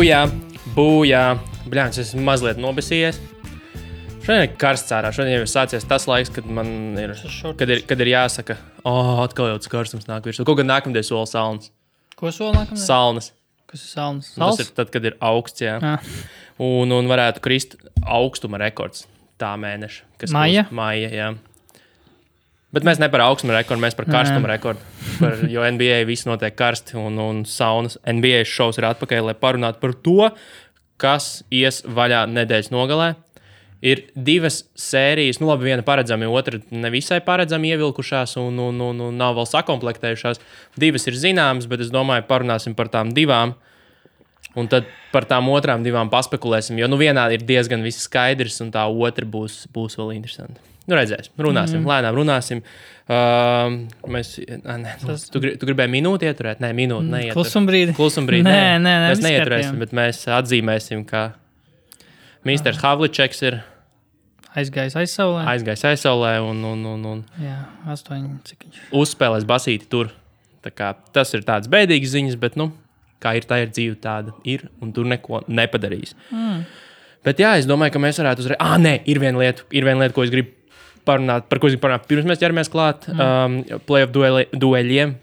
Bujā. Bļāns, es esmu mazliet nobesījies. Šodien ir karsts ārā. Šodien jau ir sācies tas laiks, kad man ir, kad ir jāsaka, atkal jau tas karstums nāk virsū. Kaut gan nākamdien sola salnas. Ko sola nākamdien? Salnas. Kas ir salnas? Tas ir tad, kad ir augsts, jā. Un varētu krist augstuma rekords tā mēneša. Maija? Maija, jā. Bet mēs ne par augstuma rekordu, mēs par karstuma rekordu. Jo NBA viss notiek karsti un saunas. NBA šovs ir atpakaļ, lai parunātu par to, kas ies vaļā nedēļas nogalē. Ir divas sērijas, labi, viena paredzami, otra nevisai paredzami ievilkušās un nav vēl sakomplektējušās. Divas ir zināmas, bet es domāju, parunāsim par tām divām. Un tad par tām otrām divām paspekulēsim, jo vienā ir diezgan viss skaidrs, un tā otra būs vēl interesanta. Redzēsim, runāsim, lēnām runāsim. Tu gribēji minūti ieturēt? Nē, minūti neiet. Klusumbrīdi. Nē, mēs neieturēsim, bet mēs atzīmēsim, ka Misters Havličeks ir aizgājis aizsaulē un jā, 8, cik viņš uzspēlēs basīti tur. Tā kā tas ir tāds bēdīgs ziņas, bet, kā ir tā ir dzīve, tāda ir, un tur neko nepadarīs. Bet jā, es domāju, ka mēs varētu uzreiz... Nē, ir viena lieta, ko es gribu parunāt, par ko es gribu parunāt. Pirms mēs ķeramies klāt playoff dueļiem.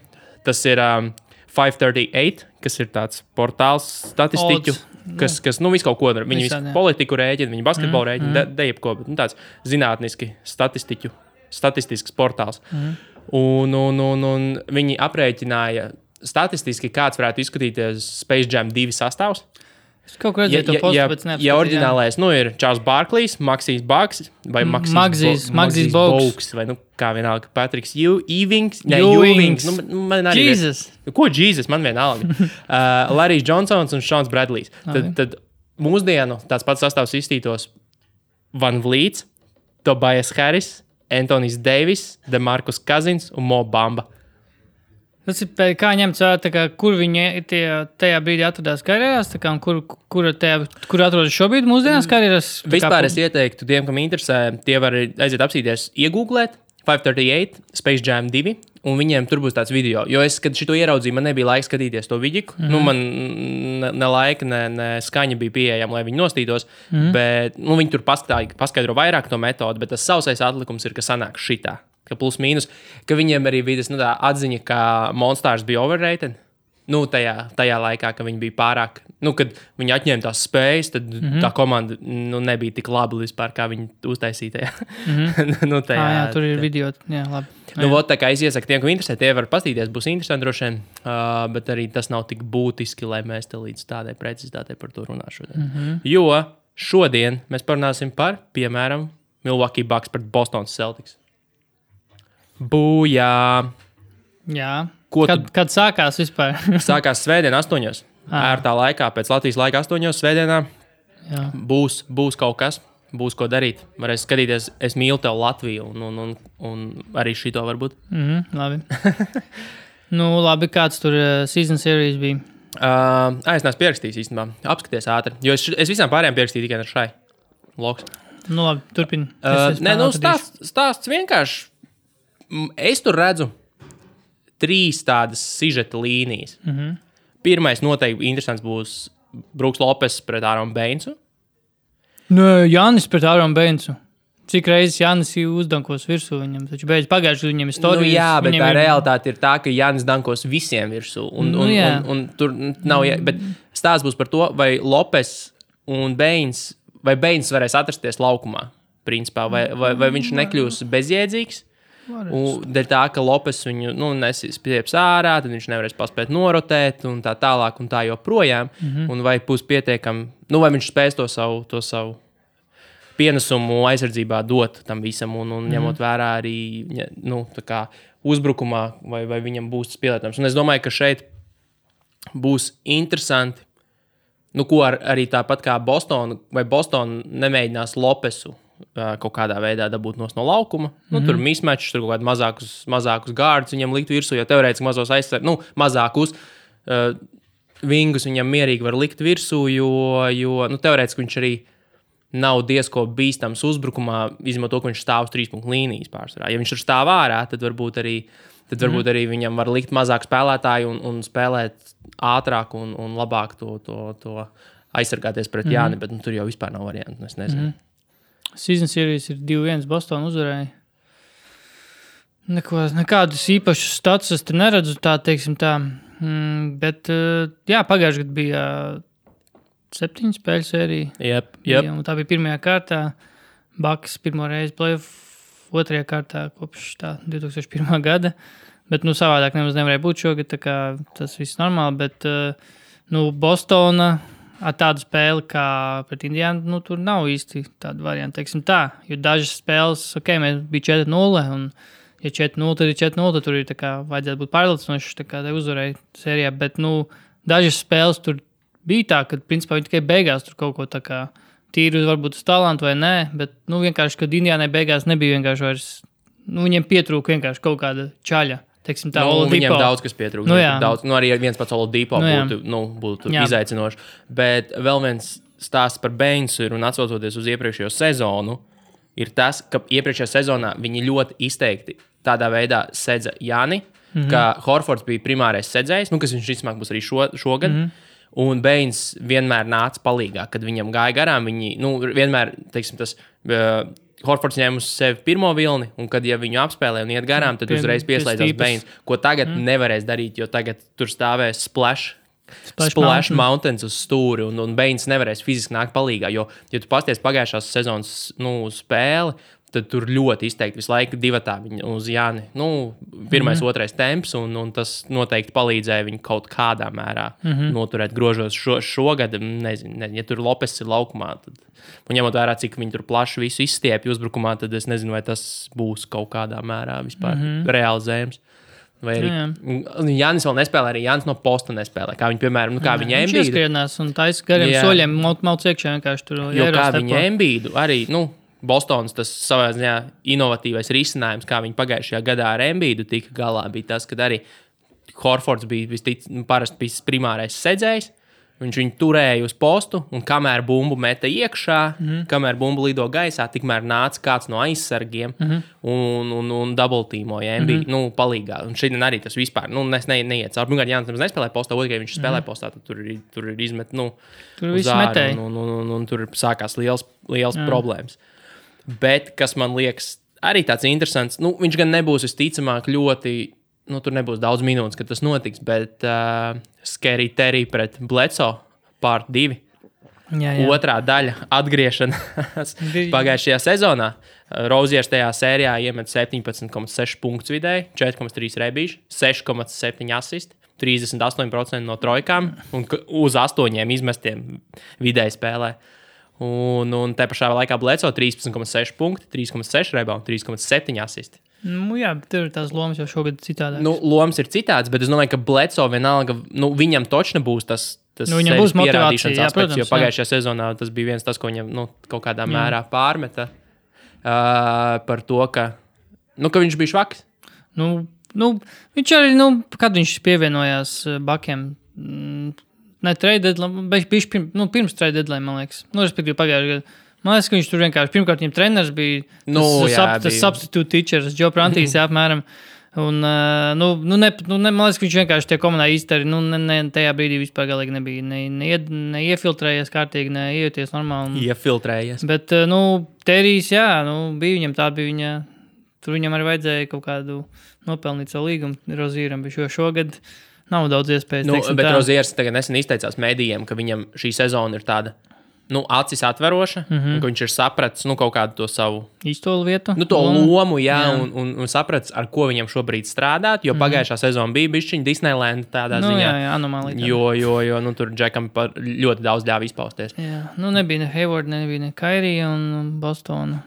Tas ir 538, kas ir tāds portāls statistiķu, kas visu kaut ko dara. Viņi visu politiku rēķina, viņi basketbolu rēķina, jebko, bet tāds zinātniski statistisks portāls. Un viņi aprēķināja statistiski, kāds varētu izskatīties Space Jam 2 sastāvs. Es kaut ko redzēju to postu, bet neapskatījām. Ja oriģinālais, ir Charles Barklejs, Maxijs Bugs vai Maxijs Bogues, vai kā vienalga Patriks Ewings. Man arī Jesus! Ko Jesus? Man vienalga. Larrys Johnsons un Seans Bradleys. Tad mūsdienu tāds pats sastāvs izstītos Van Vliets, Tobias Harris, Anthony's Davis, DeMarcus Cousins un Mo Bamba. Tas ir kā ņemts vērā, kur viņi tajā brīdī atradās karjerās, kur atrodas šobrīd mūsdienās karjerās? Vispār es ieteiktu tiem, kam interesē, tie var aiziet apsīties, iegooglēt 538, Space Jam 2, un viņiem tur būs tāds video. Jo es, kad šito ieraudzīju, man nebija laika skatīties to vidiku. Man ne laika, ne skaņa bija pieejama, lai viņi nostītos, bet viņi tur paskaidro vairāk to metodu, bet tas sausais atlikums ir, ka sanāk šitā. Ka plus mīnus, ka viņiem arī bija tā atziņa, ka Monstars bija overrated. Tajā laikā, ka viņi bija pārāk, kad viņi atņēma tās spējas, tad tā komanda nebija tik laba vispār, kā viņi uztaisīja. Tur ir video, jā, labi. Tā kā es iesaku tiem, ko interesē, tie var pastīties, būs interesanti droši vien, bet arī tas nav tik būtiski, lai mēs te līdz tādai precizitātei par to runāšu. Jo šodien mēs parunāsim par, piemēram, Milwaukee Bucks pret Boston Celtics. Bujā! Jā. Kad sākās vispār? Sākās svētdien 8. Ērtā laikā, pēc Latvijas laika 8. svētdienā. Jā. Būs kaut kas, būs ko darīt. Varēs skatīties, es mīlu tev Latviju un arī šito varbūt. Labi. Labi, kāds tur season series bija? Es neesmu pierakstījis īstenībā. Apskaties ātri. Jo es visām pārējām pierakstīju tikai ar šai. Loks. Labi, turpini. Stāsts vienkārši. Es tur redzu 3 tādas sižeta līnijas. Pirmais noteikti interesants būs Brooks Lopes pret Āronu Beinsu. Jānis pret Āronu Beinsu. Cik reizes Jānis uzdankos virsū viņam, taču beidz pagājuši viņam istorijas. Jā, bet tā realitāte ir tā, ka Jānis dankos visiem virsū. Un tur nav, bet stāsts būs par to, vai Lopes un Beins, vai Beins varēs atrasties laukumā, principā, vai viņš nekļūs bezjēdzīgs. Dēļ tā, ka Lopes viņu nesīs pieps ārā, tad viņš nevarēs paspēt norotēt un tā tālāk un tā joprojām. Un vai būs pietiekami, vai viņš spēs to savu pienesumu aizsardzībā dot tam visam un ņemot vērā arī tā kā uzbrukumā vai viņam būs tas pielietojums. Un es domāju, ka šeit būs interesanti, ko arī tāpat kā Boston nemēģinās Lopesu kaut kādā veidā dabūt no laukuma. Tur mismatchs, tur kaut kādi mazākus gārdus viņam likt virsū, jo teorētiski mazos mazākus vingus viņam mierīgi var likt virsū, jo teorētiski viņš arī nav diezko bīstams uzbrukumā, izņemot to, ka viņš stāv uz 3 punktu līnijas pārsvarā. Ja viņš tur stāv ārā, tad varbūt arī tad varbūt arī viņam var likt mazāk spēlētāju un spēlēt ātrāk un labāk to aizsargāties pret Jāni, bet tur jau vispār nav variantu, es nezinu. Season series ir 2-1, Boston uzvarēja. Nekādus īpašus status tur neredzu, teiksim tā. Bet, jā, pagājuši gadu bija 7 spēļu sērija. Yep. Un tā bija pirmajā kārtā. Bucks pirmo reizi playoff, otrajā kārtā kopš 2001. gada. Bet, savādāk nemaz nevarēja būt šogad, tā kā tas viss normāli. Bet, Bostona ar tādu spēli kā pret Indiānu, tur nav īsti tāda varianta, teiksim tā. Jo dažas spēles, mēs bija 4-0 un ja 4-0, tad ir 4-0, tad tur ir tā kā vajadzētu būt pārliecinoši, tā kā te uzvarēja sērijā, bet, dažas spēles tur bija tā, ka, principā, viņi tikai beigās tur kaut ko tā kā tīri varbūt uz talantu vai nē, bet, vienkārši, kad Indiānai beigās nebija vienkārši vairs, viņiem pietrūka vienkārši kaut kāda čaļa, teiksim tā, Oladipo. Viņiem daudz, kas pietrūka, daudz, arī viens pats Oladipo būtu izaicinoši, bet vēl viens stāsts par Bainsu ir un atsaucoties uz iepriekšējo sezonu, ir tas, ka iepriekšējā sezonā viņi ļoti izteikti tādā veidā sedza Jāni, ka Horfords bija primārais sedzējs, kas viņš vismaz būs arī šogad, un Bains vienmēr nāca palīgā, kad viņam gāja garām, viņi, vienmēr, teiksim, tas Horfords ņēma uz sevi pirmo vilni, un kad, ja viņu apspēlē un iet garām, tad uzreiz pieslēdzās Bains, ko tagad nevarēs darīt, jo tagad tur stāvēs Splash Mountains uz stūri, un Bains nevarēs fiziski nākt palīgā, jo, ja tu pasties pagājušās sezonas spēli, tad tur ļoti izteikti visu laiku divatā viņa uz Jāni. Pirmais, otrais temps, un tas noteikti palīdzēja viņu kaut kādā mērā noturēt grožos šogad. Nezinu, ja tur Lopes ir laukumā, tad, un ņemot vērā, cik viņi tur plaši visu izstiepja uzbrukumā, tad es nezinu, vai tas būs kaut kādā mērā vispār realizējams. Vai arī Jānis vēl nespēlē, arī Jānis no posta nespēlē. Kā viņi, piemēram, kā viņa Embiidu. Viņš ieskrienās un taisa gariem soļiem mauc iekšā vienkārši tur. Jo kā viņa Embiidu arī, Bostonas tas savā ziņā inovatīvais risinājums, kā viņi pagājušajā gadā ar Embiidu tika galā, bija tas, kad arī Horfords bija parasti primārais sedzējs, viņš viņu turēja uz postu, un kamēr bumbu meta iekšā, kamēr bumbu lido gaisā, tikmēr nāca kāds no aizsargiem un double-teamoja Embiidu, palīgā. Un šeit arī tas vispār, neiet caur. Pirmkārt, Jānis nemaz nespēlē postā, otrkārt, viņš spēlē postā, tad tur ir izmet, tur viss metēja. Un tur sākās liels problēmas. Bet, kas man liekas arī tāds interesants, viņš gan nebūs visticamāk ļoti, tur nebūs daudz minūtes, kad tas notiks, bet Scary Terry pret Bledsoe part 2. Jā. Otrā daļa atgriešanās pagājušajā sezonā. Roziers tajā sērijā iemet 17,6 punktus vidēji, 4,3 rebīši, 6,7 asisti, 38% no trojkām un uz 8 izmestiem vidēji spēlē. Un te pašā laikā Bledsoe 13,6 punkti, 3,6 rebound, 3,7 asisti. Jā, bet tur tās lomas jau šogad citādākas. Lomas ir citādas, bet es domāju, ka Bledsoe vienalga, viņam točne būs tas viņam būs pierādīšanas aspekts, protams, jo pagājušajā sezonā tas bija viens tas, ko viņam kaut kādā mērā pārmeta par to, ka viņš bija švaks. Viņš arī, kad viņš pievienojās Bakiem, ne trade deadline, pirms trade deadline, man liekas. Respektīvi pagājušajā gadā. Man liekas, ka viņš tur vienkārši, pirmkārt, viņam treneris bija tas substitute teachers, Joe Prantīs, apmēram. Un, man liekas, ka viņš vienkārši tie komandai iztari, tajā brīdī vispār galīgi nebija neiefiltrējies kārtīgi, neiejoties normāli. Iefiltrējies. Bet, Terijs, bija viņam tā, bija viņa, tur viņam arī vajadzēja kaut kādu nopelnīt savu līgumu Rozieram, bet šogad nav daudz iespējas. Bet Roziers tagad nesen izteicās mēdījiem, ka viņam šī sezona ir tāda, acis atveroša, un ka viņš ir sapratis, kaut kādu to savu īstolu vietu. To lomu, un sapratis, ar ko viņam šobrīd strādāt, jo pagājušā sezona bija bišķiņa Disneyland tādā ziņā. Jā, anomālija. Jo, tur Džekam ļoti daudz ļāva izpausties. Jā, nebija ne Hayward, nebija ne Kairija un Bostona.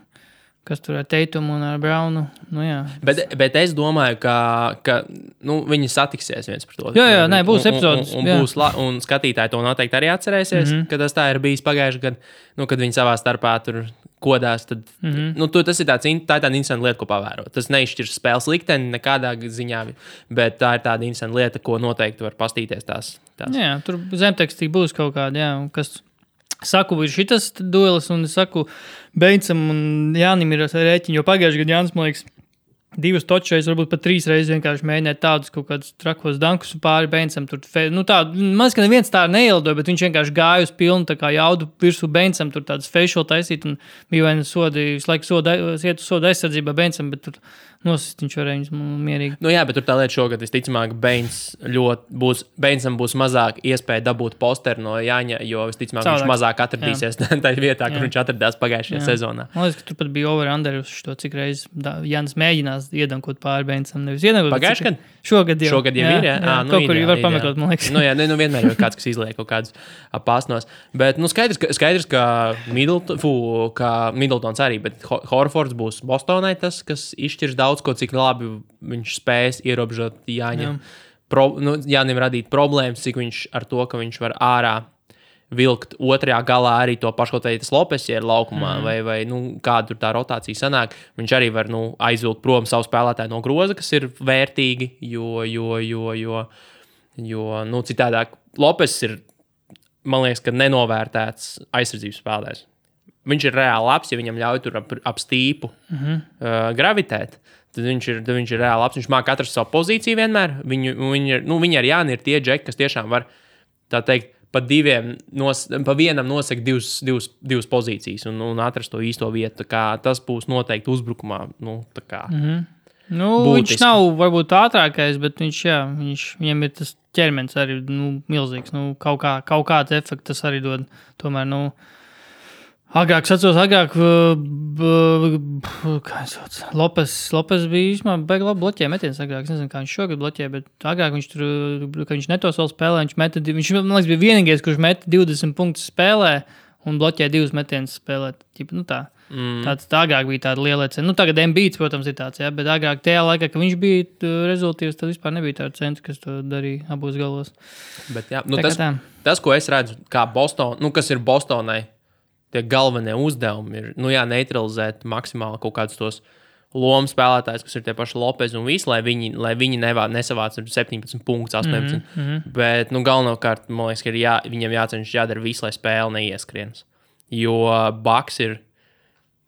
Kas tur ar Teitumu un ar Braunu. Bet es domāju, ka viņi satiksies viens par to. Jā, būs epizodes. Un skatītāji to noteikti arī atcerēsies, ka tas tā ir bijis pagājuši gadu, kad viņi savā starpā tur kodās. Tad, tas ir tā ir tāda interesanta lieta, ko pavērot. Tas neizšķirs spēles likteni nekādā ziņā, bet tā ir tāda interesanta lieta, ko noteikti var pastīties tās. Jā, tur zemtekstī būs kaut kāda, kas... Saku, ir šitas duelis, un es saku, Beincam un Jānim ir rēķini, jo pagājuši gadu Jānis, man liekas, 2 točreiz, varbūt pat 3 reizes vienkārši mēģināt tādus kaut kādus trakos dankus pāri Beincam. Man liekas, ka neviens tā neielidoja, bet viņš vienkārši gāja uz pilnu tā kā jaudu virsū Beincam, tur tādas facial taisīt un bija vai sodi, visu laiku iet uz soda aizsardzībā Beincam, bet tur nosist viņš varēja viņus mierīgi. Nu jā, bet tur tā lieta šogad visticamāk Beincam būs mazāk iespēja dabūt posteru no Jāņa, jo visticamāk viņš mazāk atradīsies tajā vietā, kur viņš atradās pagājušajā sezonā. Man liekas, ka tur pat bija over-under uz to, cik reizes Jānis mēģinās iedankot pāri Beincam. Pagājušajā gadā? Šogad jau ir, jā. Kaut kur var pameklēt, man liekas. Vienmēr ir kāds, kas izliek kaut kādus pāsnos. Bet skaidrs, ka Middletons arī, bet Horfords būs Bostonai tas, kas izšķirs daudz ko, cik labi viņš spēs ierobežot Jāņam. Jānim radīt problēmas, cik viņš ar to, ka viņš var ārā vilkt otrajā galā arī to pašu, kaut vai tas Lopes ir laukumā, vai kāda tur tā rotācija sanāk. Viņš arī var aizvilkt prom savu spēlētāju no groza, kas ir vērtīgi, jo citādāk Lopes ir, man liekas, ka nenovērtēts aizsardzības spēlētājs. Viņš ir reāli labs, ja viņam ļauj tur ap stīpu gravitēt. Tad viņš ir reāli labs. Viņš māk atrast savu pozīciju vienmēr. Viņi ar Jāni ir tie džeki, kas tiešām var, tā teikt, pa vienam nosaka divas pozīcijas un atrast to īsto vietu. Tas būs noteikti uzbrukumā. Viņš nav varbūt ātrākais, bet viņam ir tas ķermenis arī milzīgs. Kaut kāds efekts tas arī dod. Tomēr, agrāk, Lopes bija īstenībā baigi labi bloķēja metiens agrāk. Es nezinu, kā viņš šogad bloķēja, bet agrāk viņš tur, ka viņš netos vēl spēlē, viņš, man liekas, bija vienīgais, kurš meta 20 punktus spēlē un bloķēja 2 metienus spēlēt. Tā agrāk bija tāda liela cena. Tagad Embiids, protams, ir tāds, bet agrāk tajā laikā, kad viņš bija rezultīvs, tad vispār nebija tāda centra, kas to darīja abos galos. Bet jā, tas, ko es redzu, kā Boston, kas ir Bostonai, tie galvenie uzdevumi ir, neutralizēt maksimāli kaut kādus tos lomu spēlētājus, kas ir tie paši Lopez un visi, lai viņi nesavāc 17 punktus, 18. Bet, galvenokārt, man liekas, ka viņam jācenšas jādara visu, lai spēle neieskrienas. Jo Bucks ir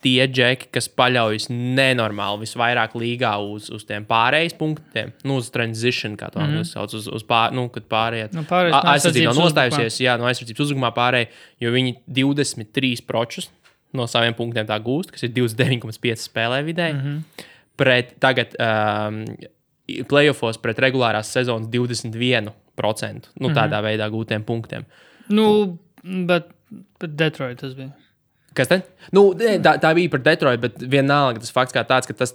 tie džeki, kas paļaujas nenormāli visvairāk līgā uz tiem pārējais punktiem, uz transition, kā to sauc, kad pārējāt. Aizsardzība nav nostājusies, no aizsardzības uzbrukumā pārēj, jo viņi 23 pročus no saviem punktiem tā gūst, kas ir 29,5 spēlē vidēji. Pret tagad playoffos pret regulārās sezonas 21%, tādā veidā gūtiem punktiem. Bet Detroit tas bija. Kas tad? Tā bija par Detroit, bet vienalga tas fakts kā tāds, ka tas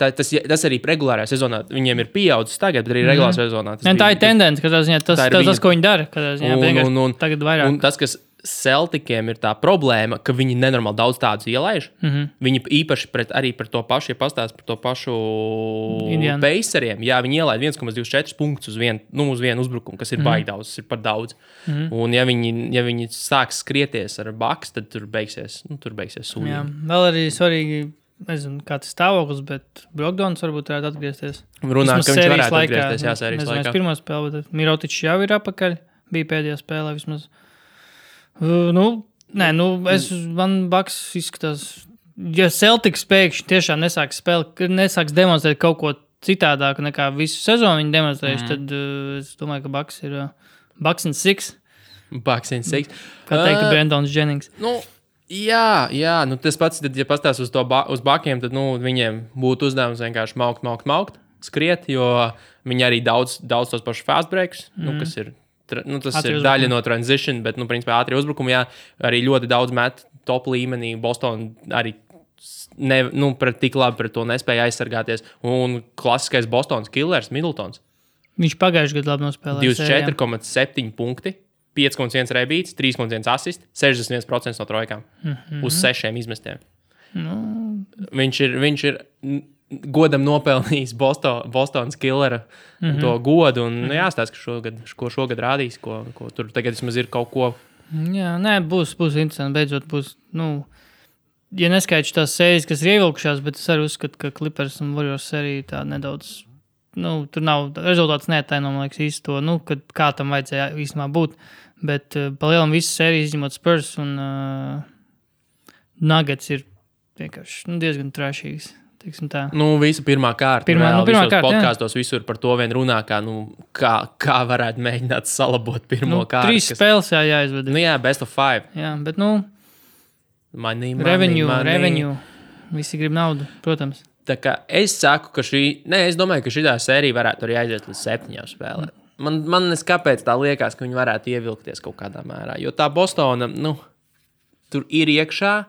arī regulārajā sezonā viņiem ir pieaudzis tagad, bet arī regulārajā sezonā. Tā ir tendence, ka tas, ko viņi dara, tagad vairāk. Un tas, kas Celticiem ir tā problēma, ka viņi nenormāli daudz tādus ielaiž. Viņi īpaši arī par to pašu, ja pastāst par to pašu Paceriem, viņi ielaid 1,24 punktus uz vienu uzbrukumu, kas ir baigi daudz, tas ir par daudz. Un ja viņi sāks skrieties ar Bucks, tad tur beigsies sūdīgi. Jā, vēl arī svarīgi, nezinu, kāds stāvoklis, bet Brogdons varbūt varētu atgriezties. Runā, ka viņš varētu atgriezties, sērijas laikā. Pirmā spēle, bet Mirotičs jau ir apakaļ, bija pēdējā spēlē vismaz. Man Bucks izskatās, ja Celtics pēkšņi tiešām nesāks demonstrēt kaut ko citādāku nekā visu sezonu viņi demonstrējuši, tad es domāju, ka Bucks ir Bucks and 6. Bucks and 6. Kā teiktu Brandons Jennings. Jā, tas pats, tad, ja pastāst uz Buckiem, tad viņiem būtu uzdevums vienkārši maukt, skriet, jo viņi arī daudz tos pašus fast breaks, kas ir. Tas ir daļa no transition, bet, principā, ātrie uzbrukumi, arī ļoti daudz met top līmenī. Boston arī tik labi pret to nespēja aizsargāties. Un klasiskais Bostonas killers, Middletons. Viņš pagājuši gadu labi nospēlēja. 24,7 punkti, 5,1 rebīts, 3,1 asist, 61% no trojkām uz 6 izmestiem. Viņš ir godam nopelnījis Bostonas killera to godu, un jāstāsta, ko šogad rādīs, ko tur tagad vismaz ir kaut ko. Jā, būs interesanti, beidzot būs, ja neskaidrs tās sērijas, kas ir ievilkušās, bet es arī uzskatu, ka Clippers un Warriors sērija tā nedaudz, tur nav, rezultāts neataino, man liekas, īsti to, kā tam vajadzēja īstenībā būt, bet pa lielam visas sērijas izņemot Spurs un Nuggets ir vienkārši diezgan trešīgs. Visa pirmā kārta. Pirmā kārta, podkāstos visur par to vien runā, kā varētu mēģināt salabot pirmo kārtu. 3 spēles jāizved. Best of 5. Jā, bet money. Revenue. Visi grib naudu, protams. Tā kā es saku, ka es domāju, ka šitā sērija varētu arī aiziet līdz 7 spēlēm. Man kāpēc tā liekas, ka viņi varētu ievilkties kaut kādā mērā, jo tā Bostona, tur ir iekšā,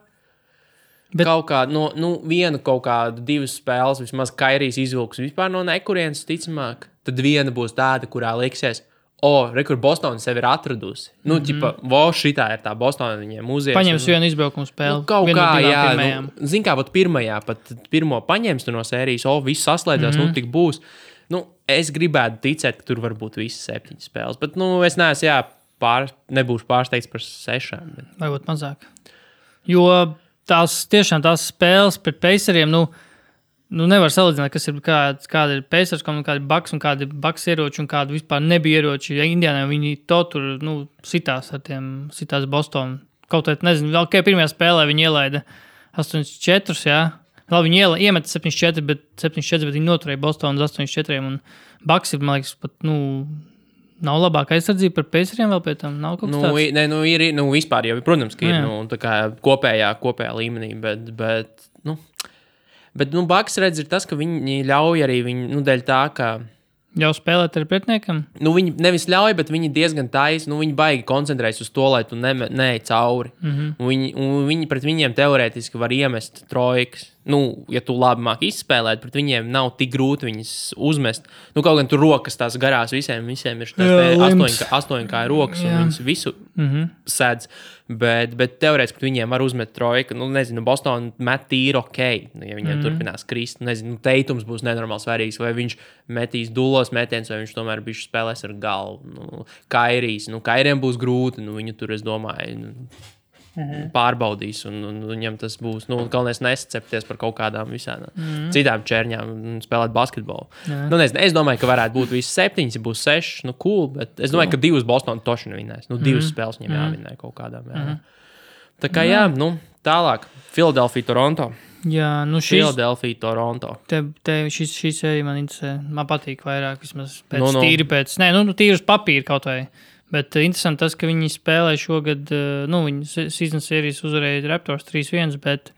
bet kaut kāda, viena kaut kāda 2 spēles, vismaz Kairijs izvilks vispār no nekurienes, ticamāk, tad viena būs tāda, kurā liksies, kur Bostona sevi ir atradusi. Šitā ir tā Bostona, viņiem uzieties. Paņems vienu izbraukumu spēli. Kaut kā, jā. Zin kā, pirmajā, pat pirmo paņems tu no sērijas, viss saslēdzās, tik būs. Es gribētu ticēt, ka tur var būt visas 7 spēles, bet, es neesmu, nebūšu pārsteigts par 6. Bet... Vai būt mazāk. Jo tiešām tās spēles pret Paceriem, nevar salīdzināt, kas ir, kāda ir Pacers, kāda ir Bucks un kāda ir Bucks ieroči un kāda vispār nebija ieroči. Ja Indiānā viņi to tur, sitās Boston. Kaut kā, nezinu, vēl pirmajā spēlē viņi ielaida 8-4, jā. Labi, viņi iemeta 7-4, bet viņi noturēja Bostonu uz 8-4, un Bucks ir, man liekas, pat, nav labāka aizsardzība par Paceriem vēl pie tam, nav kaut kas tāds? Ir, vispār jau, protams, ka ir, tā kā kopējā līmenī, bet Bucks redz ir tas, ka viņi ļauj arī dēļ tā, ka jau spēlēt ar pretiniekam? Viņi nevis ļauj, bet viņi diezgan taisi, viņi baigi koncentrējas uz to, lai tu neej cauri. Viņi pret viņiem teorētiski var iemest trojkas. Ja tu labi māk izspēlēt, pret viņiem nav tik grūti viņas uzmest. Kaut gan tur rokas tās garās visiem ir tās 8 kā rokas, un viņas visu sēdz. Bet teorētiski pret viņiem var uzmet trojka. Nezinu, Boston met tīri ja viņiem turpinās krist. Nezinu, Teitums būs nenormāli svarīgs, vai viņš metīs dulos metiens, vai viņš tomēr bišķi spēlēs ar galvu. Kairijs, Kairiem būs grūti, viņu tur, es domāju, pārbaudīs, un viņam tas būs, galvenais nesacepties par kaut kādām visām citām čērņām un spēlēt basketbolu. Nezinu, es domāju, ka varētu būt visi 7, ja būs 6, cool, bet es domāju, ka 2 Bostonu toši nevinēs. 2 spēles viņam jāvinē kaut kādām. Tā kā tālāk. Philadelphia, Toronto. Jā, Philadelphia, Toronto. Šī sērija man interesē. Man patīk vairāk, vismaz tīri pēc. Tīri uz papīra kaut vai. Bet interesanti tas, ka viņi spēlē šogad, viņi season sērijas uzvarēja Raptors 3-1, bet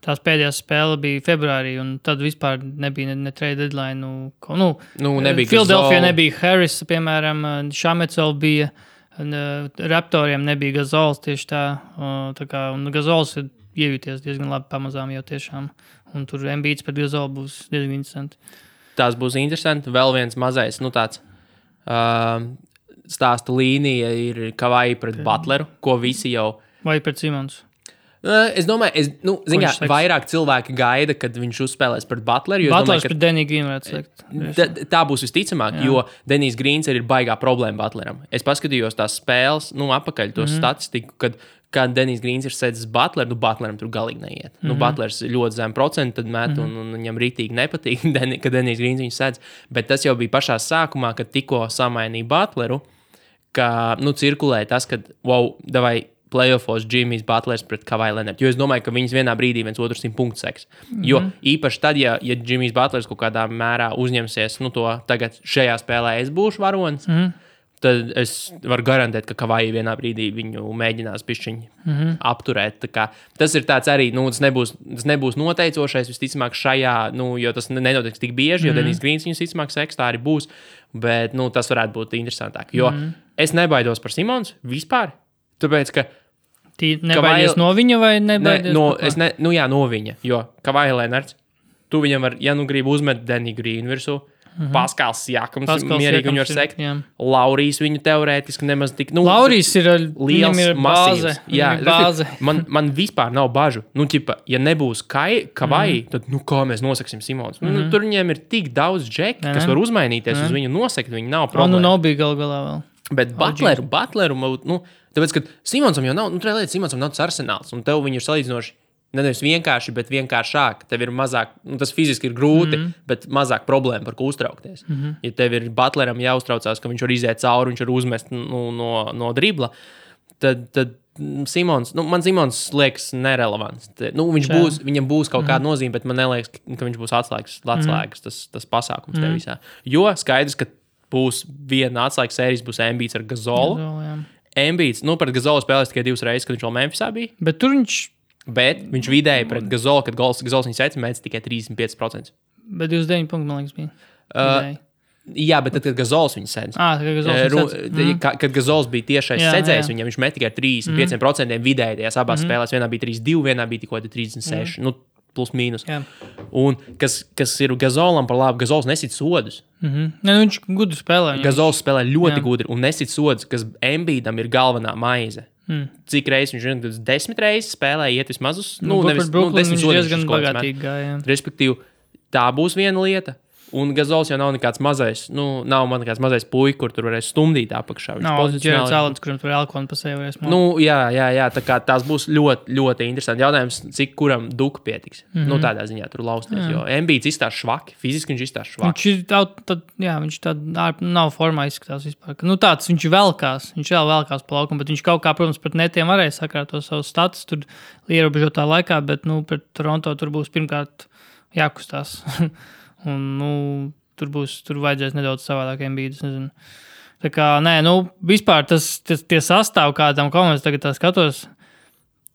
tās pēdējās spēle bija februārī, un tad vispār nebija ne trade deadline. Nebija Philadelphia nebija Harris, piemēram, Šamets vēl bija, Raptoriem nebija Gazols tieši tā kā, un Gazols ir iejūties diezgan labi pamazām jau tiešām, un tur Embiids pret Gazolu būs diezgan interesanti. Tās būs interesanti, vēl viens mazais, tāds... stāsta līnija ir Kavai pret Butleru, ko visi jau... Vai pret Simons? Es domāju, vairāk cilvēki gaida, kad viņš uzspēlēs pret Butleru. Butlers pret Deniju Grīnu varētu slikt. Tā būs visticamāk, jo Denijs Grīns ir baigā problēma Butleram. Es paskatījos tās spēles, apakaļ to statistiku, kad Denijs Grīns ir sēdzis Butleru, Butleram tur galīgi neiet. Butlers ļoti zem procentu tad met, un viņam rītīgi nepatīk, ka Denijs Grīns viņu sēdz. Bet tas jau bija pašā sākumā, kad tikko samainīja Butleru, ka, cirkulē tas, kad, davai playoffos Jimmy's Butlers pret Kawhi Leonard. Jo es domāju, ka viņas vienā brīdī viens otru 100 punktu seks. Jo īpaši tad, ja Jimmy's Butlers kaut kādā mērā uzņemsies, to tagad šajā spēlē es būšu varonis, tad es varu garantēt, ka Kawhi vienā brīdī viņu mēģinās pišķiņi apturēt. Tā kā, tas ir tāds arī, tas nebūs noteicošais, visticamāk šajā, jo tas nenotiks tik bieži, jo Denijs Grīns viņus visticamāk seks, tā arī būs, bet, tas varētu būt interesantāk. Jo es nebaidos par Simons vispār, tāpēc, ka nebaidies no viņa vai nebaidies? No viņa, jo Kawhi Leonards, tu viņam var, ja gribi uzmet Deniju Grīnu virsū, Paskals Siakams, mierīgi viņu var sekt. Laurijs viņu teorētiski nemaz tik... Laurijs ir liels, masīvs. Bāze. Man vispār nav bažu. Ja nebūs Kawhi, tad kā mēs nosaksim Simons? Tur viņiem ir tik daudz džeki, kas var uzmainīties uz viņu nosekt, viņi nav problēma. Nav bija galā vēl. Bet Butleru, tāpēc, ka Simonsam jau nav, Simonsam nav tas arsenāls, un tev viņu ir salīdzinoši nevis vienkārši, bet vienkāršāk. Tev ir mazāk, tas fiziski ir grūti, bet mazāk problēma, par ko uztraukties. Ja tev ir Butleram jāuztraucās, ka viņš var iziet cauri, viņš var uzmest no dribla, tad Simons, man Simons liekas nerelevants. Viņam būs kaut kāda nozīme, bet man neliekas, ka viņš būs atslēgas tas pasākums te visā. Jo skaidrs, ka būs viena atslēgas sērijas, būs Embiids ar Gazolu. Embiids, pret Gazolu spēlēs tikai 2 reizes, kad viņš vēl Memphisā bija. Bet viņš vidēji pret Gazolu, kad Gazols viņu sēca, mēdz tikai 35%. Bet 29 punkti, man liekas, bija. Jā, bet tad, kad Gazols viņu sēdz. Kad Gazols bija tiešais sēdzējs, viņš met tikai 35% vidēji tajās abās spēlēs. Vienā bija 3-2, vienā bija tikko 36. Plus mīnus. Un kas ir Gazolam par labu, Gazols nesit sodus. Viņš gudri spēlē. Gazols spēlē ļoti gudri un nesit sodus, kas Embiidam ir galvenā maize. Cik reizes viņš 10 reizes spēlē, iet vismaz uz... Nevis 10 sodus. Diezgan bagātīgi gāja. Respektīvi, tā būs viena lieta. Un Gazols jau nav nekāds mazais, nav man nekāds mazais puika, kur tur varēs stumdīt apakšā. Nav Džerards Alens, kuram tur Elkonu pa sevi varēs mākt. Jā, tā kā tās būs ļoti, ļoti interesanti. Jautājums, cik kuram duka pietiks. Tādā ziņā tur lausties, jo Embiids izstās švaki, fiziski viņš izstās švaki. Viņš nav formā izskatās vispār. Tāds viņš velkās pa laukumu, bet viņš kaut kā, protams, pret netiem varēja sakrāt to savu status tur ierobežotā laikā, bet, pret Toronto tur būs pirmkārt jākustās. Un, tur vajadzēs nedaudz savādāk Embiidus, nezinu. Tā kā, vispār tie sastāv kādam komandas, tagad tā skatos,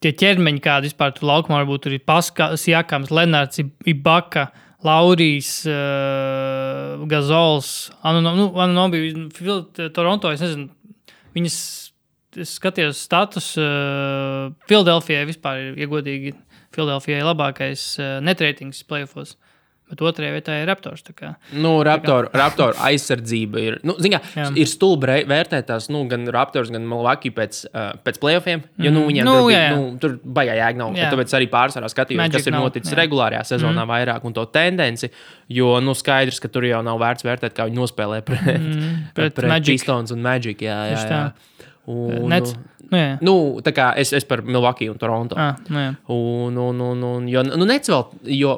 tie ķermeņi kādi vispār tur laukumā varbūt tur ir Paskas, Jakams, Lenards, Ibaka, Laurijs, Gazols, Anunobi, Toronto, es nezinu, viņas, es skatījos status, Filadelfijai vispār ir iegodīgi, Filadelfijai labākais netreitings playoffos. Bet otrajā vietā ir Raptors. Raptor aizsardzība ir. Ir stulbi vērtēt tās gan Raptors, gan Milwaukee pēc playoffiem. Jo viņiem tur baigā jēga nav. Tāpēc arī pārsvarā skatījos, kas ir noticis regulārajā sezonā vairāk un to tendenci. Jo skaidrs, ka tur jau nav vērts vērtēt, kā viņi nospēlē pret Pistons un Magic. Jā. Tā kā es par Milwaukee un Toronto. Nets vēl, jo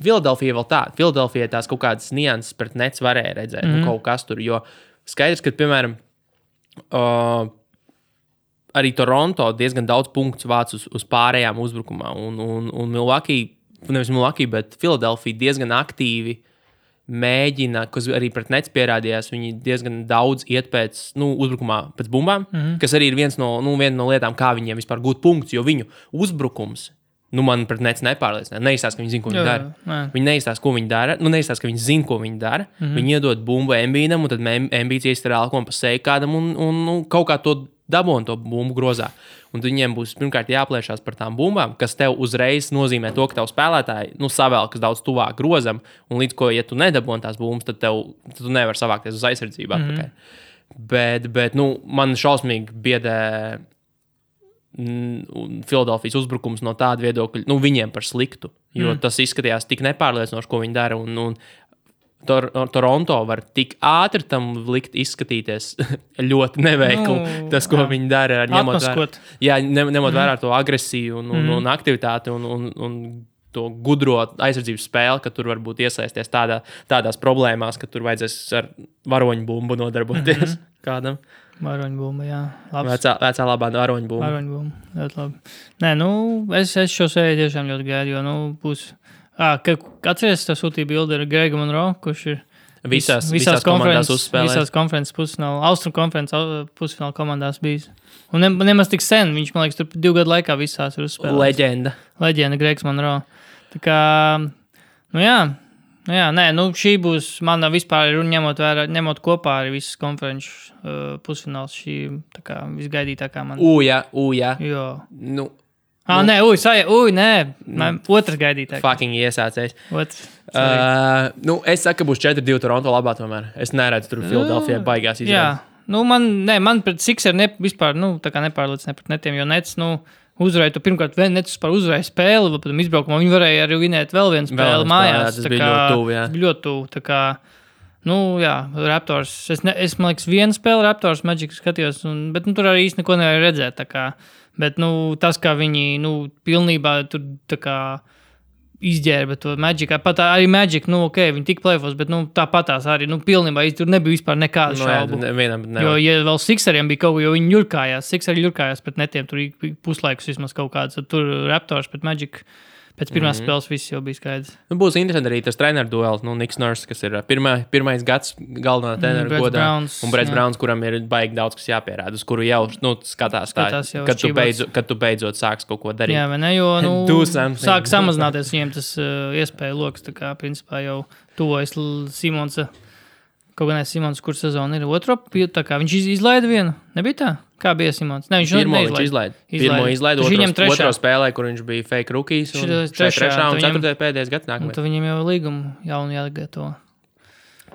Filadelfija vēl tā. Filadelfija tās kaut kādas nianses pret Nets varēja redzēt. Kaut kas tur, jo skaidrs, ka, piemēram, arī Toronto diezgan daudz punktus vāc uz pārējām uzbrukumā. Un Milwaukee, nevis Milwaukee, bet Filadelfija diezgan aktīvi mēģina, kas arī pret Nets pierādījās, viņi diezgan daudz iet pēc, uzbrukumā pēc bumbām, kas arī ir viena no lietām, kā viņiem vispār gūt punktus, jo viņu uzbrukums man pret Nets nepārliecināja. Neizstāsta, ka viņi zina, ko viņi dara. Viņi neizstāsta, ko viņi dara. Neizstāsta, ka viņi zina, ko viņi dara. Viņi iedod bumbu Embiidam, un tad Embiids iestarā Elkonu pa seju kādam un kaut kā to dabon to bumbu grozā. Un viņiem būs pirmkārt jāplēšās par tām bumbām, kas tev uzreiz nozīmē to, ka tev spēlētāji savēlkas daudz tuvāk grozam, un līdz ko, ja tu nedabon tās bumbas, tad tu nevar savākties uz aizsardzību atpakaļ. Bet man šausmīgi biedē Filadelfijas uzbrukums no tāda viedokļa, viņiem par sliktu, jo tas izskatījās tik nepārliecinoši, ko viņi dara, un Toronto var tik ātri tam likt izskatīties ļoti neveikli, tas, ko viņi dara, ņemot vērā to agresiju un aktivitāti un to gudro aizsardzības spēli, ka tur varbūt iesaisties tādās problēmās, ka tur vajadzēs ar varoņu bumbu nodarboties kādam. Varoņu bumba, jā. Vecā labā varoņu bumba. Varoņu bumba, ļoti labi. Nē, es šo sēriju tiešām ļoti gaidu, jo, būs... Atceries, tev sūtīja bildi ar Gregu Monroe, kurš ir visās komandās uzspēlējis. Visās konferences pusfināla, Austrum konferences pusfināla komandās bijis. Un nemaz tik sen, viņš, man liekas, tur 2 gadu laikā visās ir uzspēlējis. Leģenda, Gregs Monroe. Tā kā, šī būs mana vispār, ņemot kopā arī visas konferences pusfināls, šī tā kā visgaidītākā man. Jā. Jo. Nē, otrs gaidītājs. Fucking iesācējs. Es saku, ka būs 4-2 Toronto labā tomēr. Es neredzu tur Filadelfijai baigās izrādīt. Jā, man pret Sixer vispār, tā kā nepārliecināja pret netiem, jo Nets, uzvarēja, tu pirmkārt Nets vispār uzvarēja spēli, bet izbraukumā viņi varēja arī vinēt vēl vienu spēli mājās. Tas bija ļoti tuvu, jā. Ļoti tuvu, tā kā, Raptors, es man liekas, vienu spēli Raptors Magic skatījos, bet tur arī īsti neko nevarēja redzēt, tā kā. Bet, tas, kā viņi, pilnībā tur, tā kā, izģērba to Magic. Pat arī Magic, viņi tik plēfos, bet tāpatās arī, pilnībā tur nebija vispār nekādu šaubu. Jo, ja vēl Sixeriem bija kaut ko, jo viņi Sixeri ļurkājās pret netiem, tur puslaikus vismaz kaut kāds, tur Raptors pret Magic. Pēc pirmās spēles viss jau bija skaidrs. Būs interesanti arī tas treneru duels. Niks Nurse, kas ir pirmais gads galvenā treneru godā. Un Brets Browns, kuram ir baigi daudz, kas jāpierāda, uz kuru jau skatās tā, kad tu beidzot sāks kaut ko darīt. Jā, vai ne, jo sāk samazināties viņiem tas iespēja loks, tā kā principā jau tuvojas Simonsa, kaut gan Simons, kur sezona ir otro, tā kā viņš izlaida vienu, nebija tā? Kā bija Simons? Ne, viņš izlaida. Pirmo izlaida, otro spēlē, kur viņš bija fake rookies, un trešā un ceturtajā pēdējais gads nākamais. Tad viņam jau līgumu jaunu jāgatavo.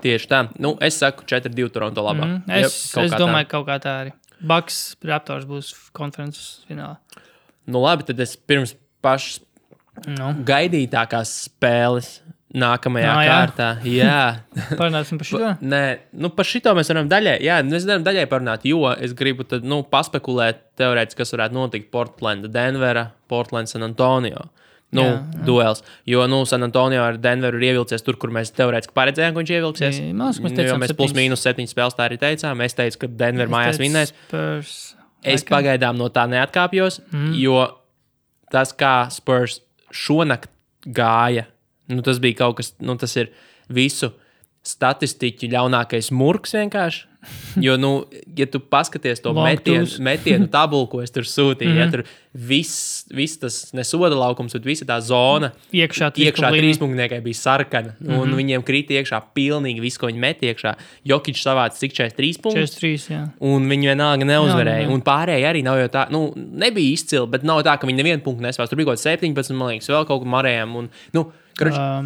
Tieši tā. Es saku 4-2 Toronto labā. Es domāju, kaut kā tā arī. Bucks Raptors būs konferences finālā. Labi, tad es pirms pašas gaidītākās spēles nākamajā kārtā. Jā. Parunāsim par šito? Nē, par šito mēs varam daļai. Jā, mēs varam daļai parunāt, jo es gribu tad, paspekulēt teorētiski, kas varētu notikt Portlanda, Denvera, Portland, San Antonio. Duels. Jo, San Antonio ar Denveru ir ievilcies tur, kur mēs teorētiski paredzējām, ka viņš ievilksies. Jo mēs plus-mínus 7 spēles tā arī teicām. Es teicu, ka Denver mājās vinnēs. Es pagaidām no tā neatkāpjos, jo tas, kā Spurs šonakt gāja, tas bija kaut kas, tas ir visu statistiķu ļaunākais murks vienkārši. Jo, ja tu paskaties to metienu tabulu, ko es tur sūtīju, ja tur viss tas nesoda laukums, bet visa tā zona iekšā trīspunktniekai bija sarkana, un viņiem krīt iekšā pilnīgi viss, ko viņi met iekšā. Jokić savāca cik 43 punktus, 43, jā. Un viņi vienalga neuzvarēja. Un pārējie arī nav jau tā, nebija izcili, bet nav tā, ka viņi nevienu punktu nespēs. Tur bija kaut 17, man liekas, vēl kaut ko marējām, un,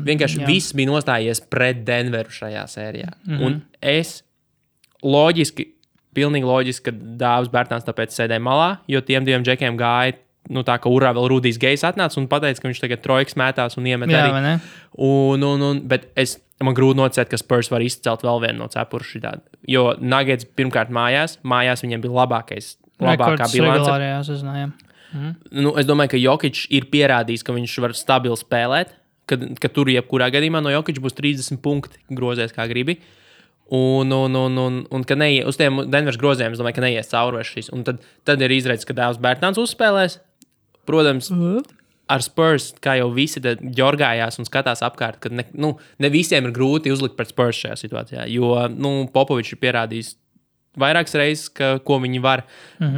vienkārši viss bija nostājies pret Denveru šajā sērijā. Un es pilnīgi loģiski, ka Dāvis Bērtāns tāpēc sēdēja malā, jo tiem diviem džekiem gāja, tā kā urā vēl Rudijs Gejs atnāca un pateica, ka viņš tagad trojkas mētās un iemet arī. Bet man grūti noticēt, ka Spurs var izcelt vēl vienu no cepura šitādi. Jo Nuggets pirmkārt mājās viņiem bija labākā bilance. Es domāju, ka Jokić ir pierādījis, ka viņš var stabili spēlēt, ka tur jebkurā gadījumā no Jokića būs 30 punkti grozēs, kā gribi. Un ka uz tiem Denveras grozējiem, es domāju, ka neies cauri šīs. Un tad ir izredzes, ka Dāvis Bērtāns uzspēlēs. Protams, ar Spurs, kā jau visi ģorgājās un skatās apkārt, ka ne visiem ir grūti uzlikt pret Spurs šajā situācijā. Jo Popovičs ir pierādījis vairākas reizes, ko viņi var.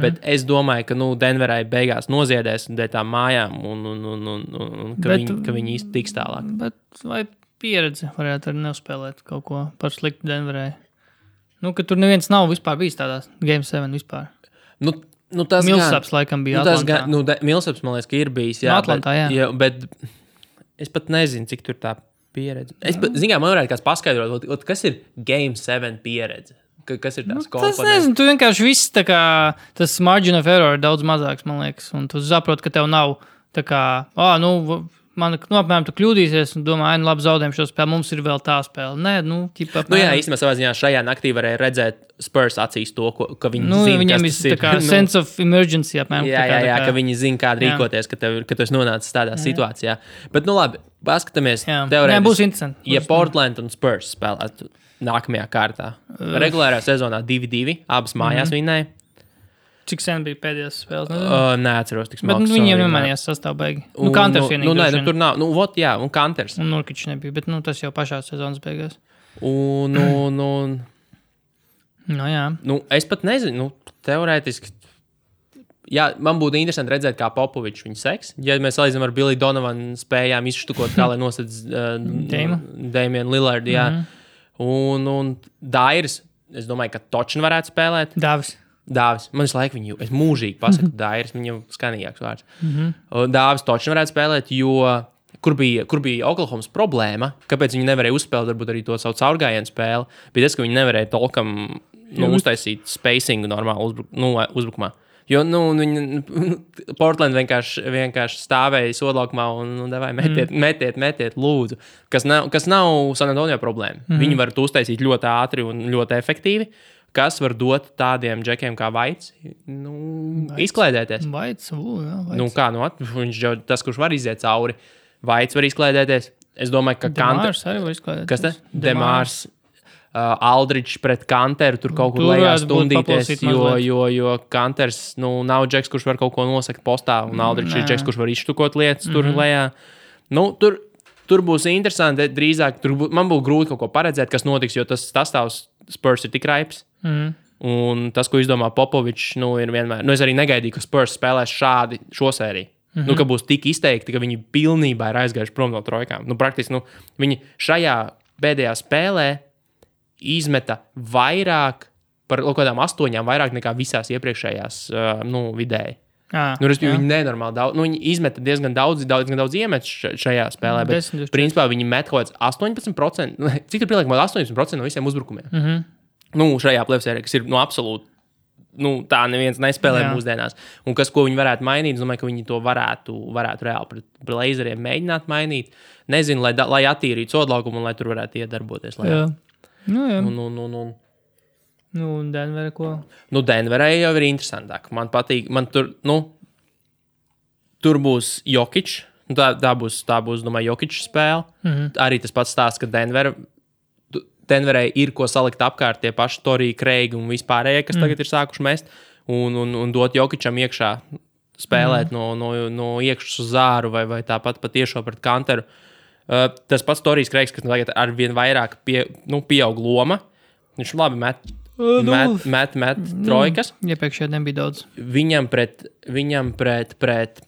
Bet es domāju, ka Denverai beigās noziedēs dēļ tām mājām un ka viņi īsti tiks tālāk. Bet vai pieredze varētu arī neuzspēlēt kaut ko par sliktu Denverai? Ka tur neviens nav vispār bijis tādās Game 7 vispār. Millsaps laikam bija Atlantā. Millsaps, man liekas, ka ir bijis. Jā, Atlantā, jā. Bet es pat nezinu, cik tur tā pieredze. Man varētu kāds paskaidrot, kas ir Game 7 pieredze? Kas ir tās komponentes? Tas nezinu, tu vienkārši viss tā kā, tas margin of error ir daudz mazāks, man liekas, un tu saproti, ka tev nav tā kā, apmēram tu kļūdīsies un domā, labi, zaudējam šo spēli, mums ir vēl tā spēle. Nē, jā, īstenībā savā ziņā šajā naktī varēja redzēt Spurs acīs to, ka viņi zina, viņam kas tas ir. Tā kā sense of emergency, apmēram. Jā, ka viņi zina, kā rīkoties, ka tu esi nonācis tādā situācijā. Bet, labi, paskatāmies teorētiski. Būs interesanti. Ja Portland un Spurs spēlētu nākamajā kārtā. Regulārā sezonā 2-2, abas mājās vinnēja. Cik sen bija pēdējās spēles? Neatceros tik smalki. Bet viņiem nemanījās sastāv beigi. Kanters vienīgi. Tur nav. Un Kanters. Un Nurkičs nebija, bet tas jau pašā sezonas beigās. Jā. Es pat nezinu, teorētiski. Jā, man būtu interesanti redzēt, kā Popovičs viņu seks. Ja mēs salīdzinām ar Billy Donovanu spējām izštukot, kā lai nosedz Damian Lillard, jā. Un Dairis, es domāju, ka Točin varētu spēlēt. Dāvis. Man visu laiku es mūžīgi pasaku Dairis, viņam skanīgāks vārds. Dāvis Točin varētu spēlēt, jo kur bija Oklahomas problēma, kāpēc viņi nevarēja uzspēlēt, varbūt arī to savu caurgājienu spēli, bija tas, ka viņi nevarēja tolkam uztaisīt spacingu normāli uzbrukumā. Jo, Portland vienkārši stāvēja sodlaukumā un devēja metiet, lūdzu. Kas nav San Antonio problēma. Viņi var to uztaisīt ļoti ātri un ļoti efektīvi. Kas var dot tādiem džekiem kā Vaits? Izklaidēties. Vaits, jā. Viņš jau tas, kurš var iziet cauri. Vaits var izklaidēties. Es domāju, ka Demārs arī var izklaidēties. Kas te? Demārs. Aldridge pret Kanteru tur kaut kur lejā stundīties, jo Kanters nav džeks, kurš var kaut ko nosakt postā, un Aldridge ir džeks, kurš var izštukot lietas tur lejā. Tur būs interesanti, drīzāk man būtu grūti kaut ko paredzēt, kas notiks, jo tas sastāvs Spurs ir tik raips. Un tas, ko izdomā Popovičs, ir vienmēr. Es arī negaidīju, ka Spurs spēlēs šo sēriju. Ka būs tik izteikti, ka viņi pilnībā ir aizgājuši prom no trojkām. Praktiski viņi šajā pēdējā spēlē izmeta vairāk, par kaut kādām 8 vairāk nekā visās iepriekšējās vidēji. Viņi nenormāli daudz, viņi izmeta diezgan daudz iemet šajā spēlē, bet principā viņi met kaut kāds 18%, cik tur pieliek 18% no visiem uzbrukumiem. Šajā plēvsērē, kas ir absolūti, tā neviens nespēlē mūsdienās. Un ko viņi varētu mainīt, es domāju, ka viņi to varētu reāli pret Blazeriem mēģināt mainīt. Nezinu, lai attīrītu sodlaukumu un lai tur varētu iedarboties. Denverē ko? Denverē jau ir interesantāk. Man patīk, tur būs Jokic. Tā būs, domāju, Jokic spēle. Arī tas pats stāsts, ka Denverē ir ko salikt apkārt tie paši Torija, Kreigi un vispārējie, kas tagad ir sākuši mest, un dot Jokicam iekšā spēlēt no iekšas uz zāru vai tāpat patiešo pret Kanteru. Tas pats Torijs Kreigs, kas tagad arvien vairāk pieaug loma. Viņš labi met trojkas. Iepriekšējā nebija daudz. Viņam pret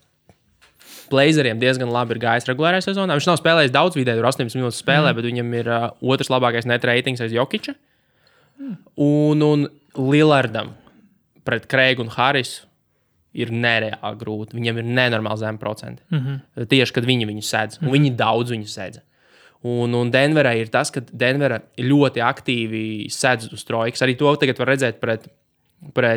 Blazeriem diezgan labi ir gājis regulārajā sezonā. Viņš nav spēlējis daudz vidēji, tur 18 minūtes spēlē, bet viņam ir otrs labākais net ratings aiz Jokiča. Un Lillardam pret Kreigu un Harisu ir nereāli grūti. Viņam ir nenormāli zem procenti. Tieši, kad viņu sēdz. Un viņi daudz viņu sēdz. Un Denverā ir tas, ka Denverā ļoti aktīvi sēdz uz trojkas. Arī to tagad var redzēt pret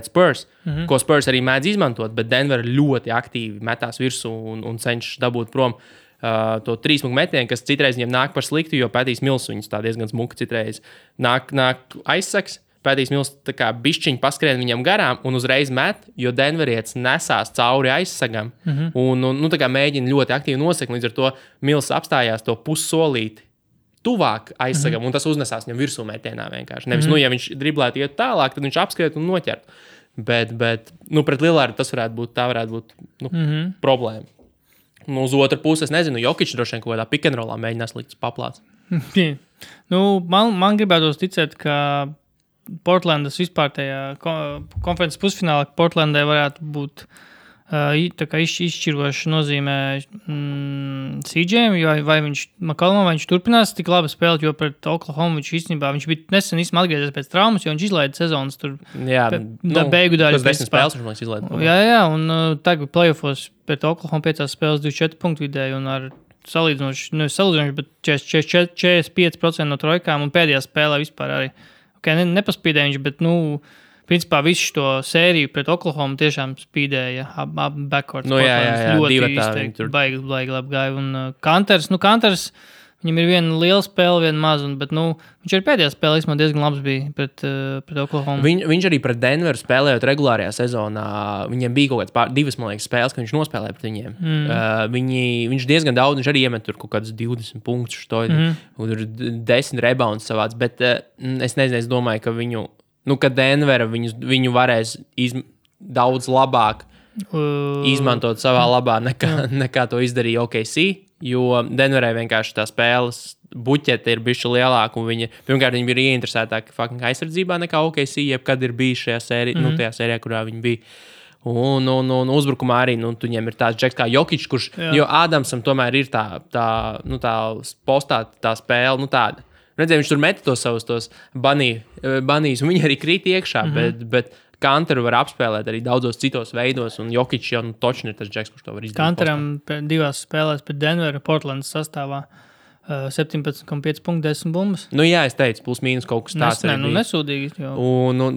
Spurs, ko Spurs arī mēdz izmantot, bet Denver ļoti aktīvi metās virsū un cenšas dabūt prom to 3 metienu, kas citreiz viņiem nāk par sliktu, jo Pētīs Mils viņus tā diezgan smuki citreiz nāk aizsaks. Pētīs Mils tā kā bišķiņi paskrien viņam garām un uzreiz met, jo Denverietis nesās cauri aizsagam un tā kā mēģina ļoti aktīvi nosekt, līdz ar to Mils apstājās to pussolīti tuvāk aizsagam, un tas uznesās viņam virsū metienā vienkārši. Nevis, ja viņš driblētu iet tālāk, tad viņš apskriet un noķert. Bet pret Lillardu tas varētu būt problēma. Uz otru pusi, es nezinu, Jokic droši vien kaut kādā pick and rollā mēģinās likt paplāts. Man gribētos ticēt, ka Portlandas vispār tajā konferences pusfinālā Portlandai varētu būt tā kā izšķiroša nozīmē CJ'am, vai viņš turpinās tik labi spēlēt, jo pret Oklahoma viņš īstenībā, viņš bija nesen atgriezies pēc traumas, jo viņš izlaida sezonas tur beigu daļu. Tas 10 spēles viņš izlaida. Jā, un tagad playoffos pret Oklahoma 5 spēles 24 punktu vidēji un ar salīdzinoši, bet 45% no trojkām un pēdējā spēlē vispār arī. Nepaspīdēja viņš, bet, principā visu to sēriju pret Oklahoma tiešām spīdēja backcourt. Ļoti izteikti, baigi labi gāja. Un Kanters, viņam ir viena liela spēle, viena maza, bet, viņš arī pēdējā spēlē diezgan labs bija pret Oklahoma. Viņš arī pret Denveru spēlējot regulārajā sezonā, viņiem bija kaut kāds 2, man liekas, spēles, ka viņš nospēlēja pret viņiem. Viņš diezgan daudz, viņš arī iemet tur kaut kādus 20 punktus, un tur 10 rebounds savāds, bet es nezinu, es domāju, ka ka Denvera viņu varēs daudz labāk izmantot savā labā nekā to izdarīja OKC, jo Denverai vienkārši tā spēles buķete ir bišķi lielāka, un pirmkārt viņi bija ieinteresētāki aizsardzībā nekā OKC, jebkad ir bijis šajā sērijā, tajā sērijā, kurā viņi bija. Un uzbrukumā arī, viņiem ir tāds džeks kā Jokic, kurš, jo Ādamsam tomēr ir tā postā tā spēle, tāda. Redzēju, viņš tur meta tos banīs, un viņi arī krīt iekšā, bet Kanteru var apspēlēt arī daudzos citos veidos, un Jokic jau točni ir tas džeks, kurš to var izdarīt. Kanteram 2 spēlēs pret Denveru Portlandas sastāvā 17,5 punktu 10 bumbas. Jā, es teicu, plus mīnus kaut kas tāds. Nesūdīgi.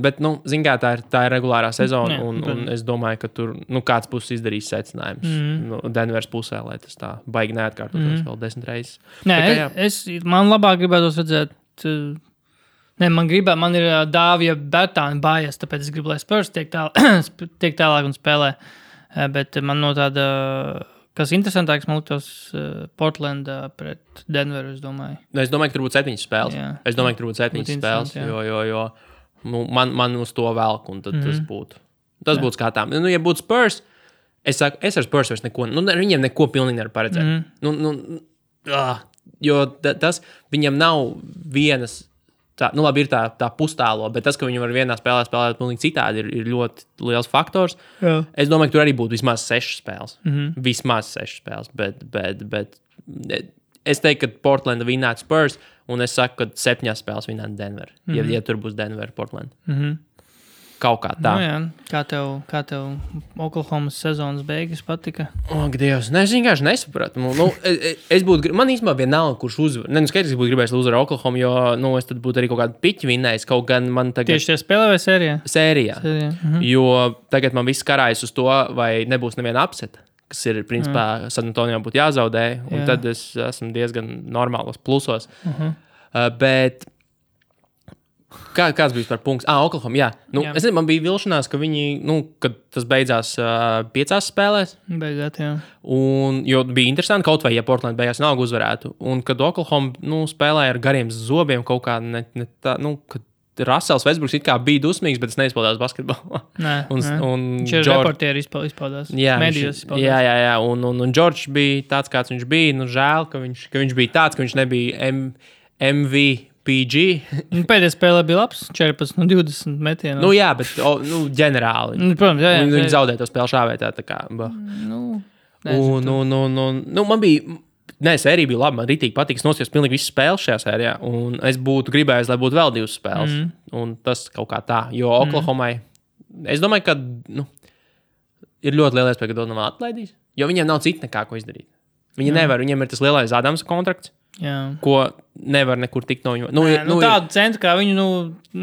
Bet, zin kā, tā ir regulārā sezona, un es domāju, ka tur, kāds būs izdarījis secinājums Denveras pusē, lai tas tā baigi neatkārtotos vēl 10 reizes. Man labāk gribētos redzēt, man ir Dāvija Bertāna bājas, tāpēc es gribu, lai Spurs tiek tālāk un spēlē, bet man no tāda Kas interesantāks, man liktos Portlandā pret Denveru, es domāju. Es domāju, ka tur būtu 7 spēles. Jā. Es domāju, ka tur būtu 7 spēles, jo man uz to velk, un tad tas būtu skatām. Ja būtu Spurs, es saku, es ar Spurs vairs neko, viņiem neko pilnīgi nevar paredzēt. Jo tas, viņam nav vienas, labi, ir tā pustālo, bet tas, ka viņi var vienā spēlē spēlēt pilnīgi citādi, ir ļoti liels faktors. Jā. Es domāju, ka tur arī būtu vismaz 6 spēles. Vismaz 6 spēles, bet es teiktu, ka Portlanda vinnētu Spurs, un es saku, ka 7 spēles vinnētu Denver, ja tur būs Denver, Portland. Kaut kā tā. Nu, jā. Kā tev Oklahomas sezonas beigas patika? Ak, Dievs, es vienkārši nesapratu. Man īstenībā vienalga, kurš uzvar. Skaidrs, es būtu gribējis uzvarēt Oklahomu, jo es tad būtu arī kaut kādu piķi vinnējis. Kaut gan man tagad... Tieši tie spēlē vai sērijā? Sērijā. Jo tagad man viss karājas uz to, vai nebūs neviena upseta, kas ir, principā, San Antonio būtu jāzaudē, un tad es esmu diezgan normālos plusos. Bet... Kāds bija par punkts? Oklahoma, jā. Es nezinu, man bija vilšanās, ka viņi, kad tas beidzās 5 spēlēs. Beigāt, jā. Jo bija interesanti, kaut vai, ja Portland beigās nav uzvarētu. Un kad Oklahoma, spēlēja ar gariem zobiem kaut kā, kad Russells Westbrooks it kā bija dusmīgs, bet es neizpaudās basketbolā. Viņš reportieri izpaudās. Medijos izpaudās. Jā. Un Džordžs bija tāds, kāds viņš bija. Žēl, ka viņš bija tāds, ka viņš nebija MVP. Pēdējā spēlē bija labs, 14 no 20 metienu. Jā, bet ģenerāli. Protams, jā. Viņi zaudēja to spēli šāvētā, tā kā. Man bija, sērija bija laba, man ritīgi patīk, es noskatījos pilnīgi visas spēles šajā sērijā, un es būtu gribējis, lai būtu vēl 2 spēles, un tas kaut kā tā, jo Oklahomai, es domāju, ka, ir ļoti liela iespēja, ka to nav atlaidīs, jo viņiem nav cita nekā, ko izdarīt. Viņi nevar, viņiem ir tas lielais Adamsa kontrakts. Jā. Ko nevar nekur tikt no viņu. Tādu centru, kā viņu,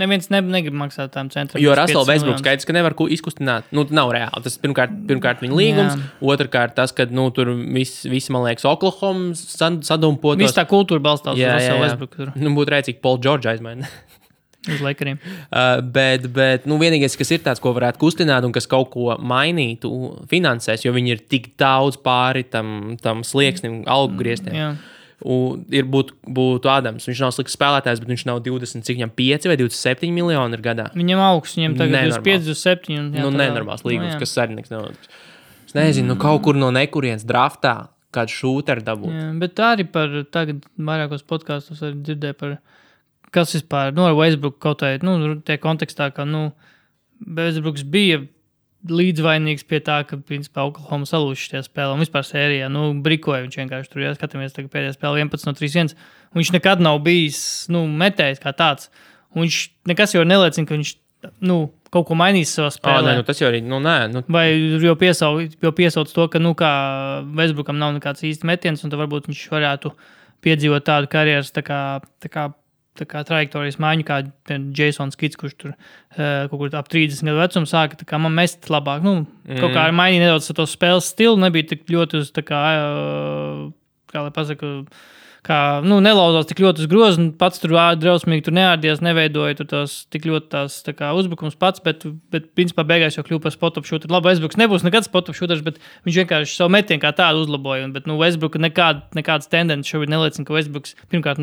neviens negrib maksāt tām centram. Jo Russell Westbrooks skaidrs, ka nevar izkustināt. Nav reāli. Tas pirmkārt viņa līgums, otrkārt tas, ka tur visi, man liekas, Oklahoma sadumpotos. Viss tā kultūra balstās uz Russell Westbrooku. Būtu rēcīgi Paul George aizmaina. Uz Lakeriem. Bet vienīgais, kas ir tāds, ko varētu kustināt un kas kaut ko mainītu finansēs, jo viņi ir tik daudz pāri tam slieksnim, algu griestiem. Būtu Ādams. Viņš nav slikts spēlētājs, bet viņš nav 25 vai 27 miljoni ir gadā. Viņam augsts, viņam tagad 25, 27. Nenormāls līgums, kas sarnieks nav. Es nezinu, kaut kur no nekurienes draftā kādu šūteru dabūt. Jā, bet arī par tagad vairākos podkastos arī dzirdēju par kas vispār, ar Westbrook kaut vai, tie kontekstā, ka, Westbrooks bija līdzvainīgs pie tā, ka, principā, Oklahoma salūši šajā spēlē un vispār sērijā, brikoja viņš vienkārši tur, skatāmies tagad pēdējā spēlē 11 no 3-1, un viņš nekad nav bijis, metējis kā tāds, un viņš nekas jau neliecina, ka viņš, kaut ko mainīs savā spēlē. Tas jau arī, nē. Vai jau piesauc to, ka, kā Westbrookam nav nekāds īsti metiens, un tad varbūt viņš varētu piedzīvot tādu karjeras, tā kā trajektorijas maiņu, kā Jasons Kids, kurš tur kaut kur ap 30 gadu vecumu sāka, tā kā man mest labāk, kaut kā mainīja nedaudz to spēles stilu, nebija tik ļoti uz, kā lai pasaka, nelauzās tik ļoti uz grozu, pats tur drausmīgi tur neārdies, neveidoja tur tās tik ļoti tās tā kā uzbrukums pats, bet principā beigās jau kļuva par spot-up shooter. Labi, Westbrooks nebūs nekad spot-up shooters, bet viņš vienkārši savu metienu kā tādu uzlaboja. Bet Westbrooka nekādas tendences šobrīd neliecina, ka Westbrooks pirmkārt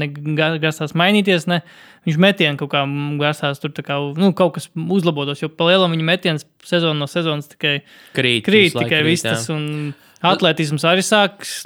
grasās mainīties, ne. Viņš metienu kaut kā grasās tur tā kā, kaut kas uzlabotos, jo pa lielam viņa metiens sezonu no sezonas tikai krīt tikai viss tas, un atletisms arī sāks,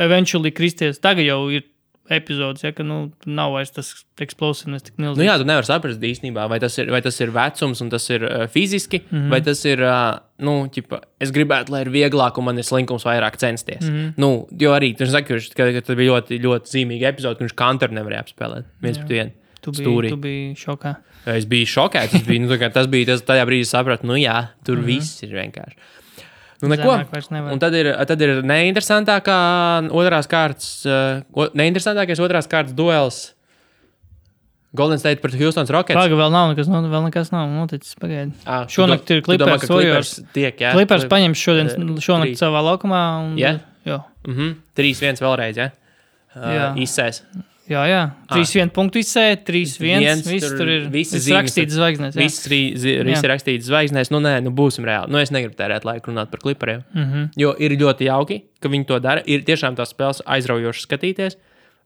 eventually kristies. Tagad jau ir epizodes, ka nav vairs tas explosiveness tik milzīgs. Jā, tu nevar saprast īstenībā, vai tas ir vecums un tas ir fiziski, vai tas ir, es gribētu, lai ir vieglāk un man ir slinkums vairāk censties. Jo arī, tu saki, ka tas bija ļoti, ļoti zīmīgi epizode, ka viņš Kanteru nevarēja apspēlēt. Viens pret vienu. Tu biji šokā. Es biju šokēts. Tas bija tajā brīdī sapratu, tur viss ir vienkārši. Neko. Un tad ir neinteresantākais otrās kārtas duels Golden State pret Houston Rockets. Paga, vēl nekas nav noticis, pagaidi. Šonakt ir Clippers Warriors. Clippers paņems šonakt savā laukumā. Un, jā? 3-1 vēlreiz, jā? Izsēs. Jā. 3-1 punktu izsēja, 3-1. Viss tur ir rakstīts zvaigznēs. Viss ir rakstīts zvaigznēs. Būsim reāli. Es negribu tērēt laiku runāt par klipariem. Jo ir ļoti jauki, ka viņi to dara. Ir tiešām tās spēles aizraujošas skatīties.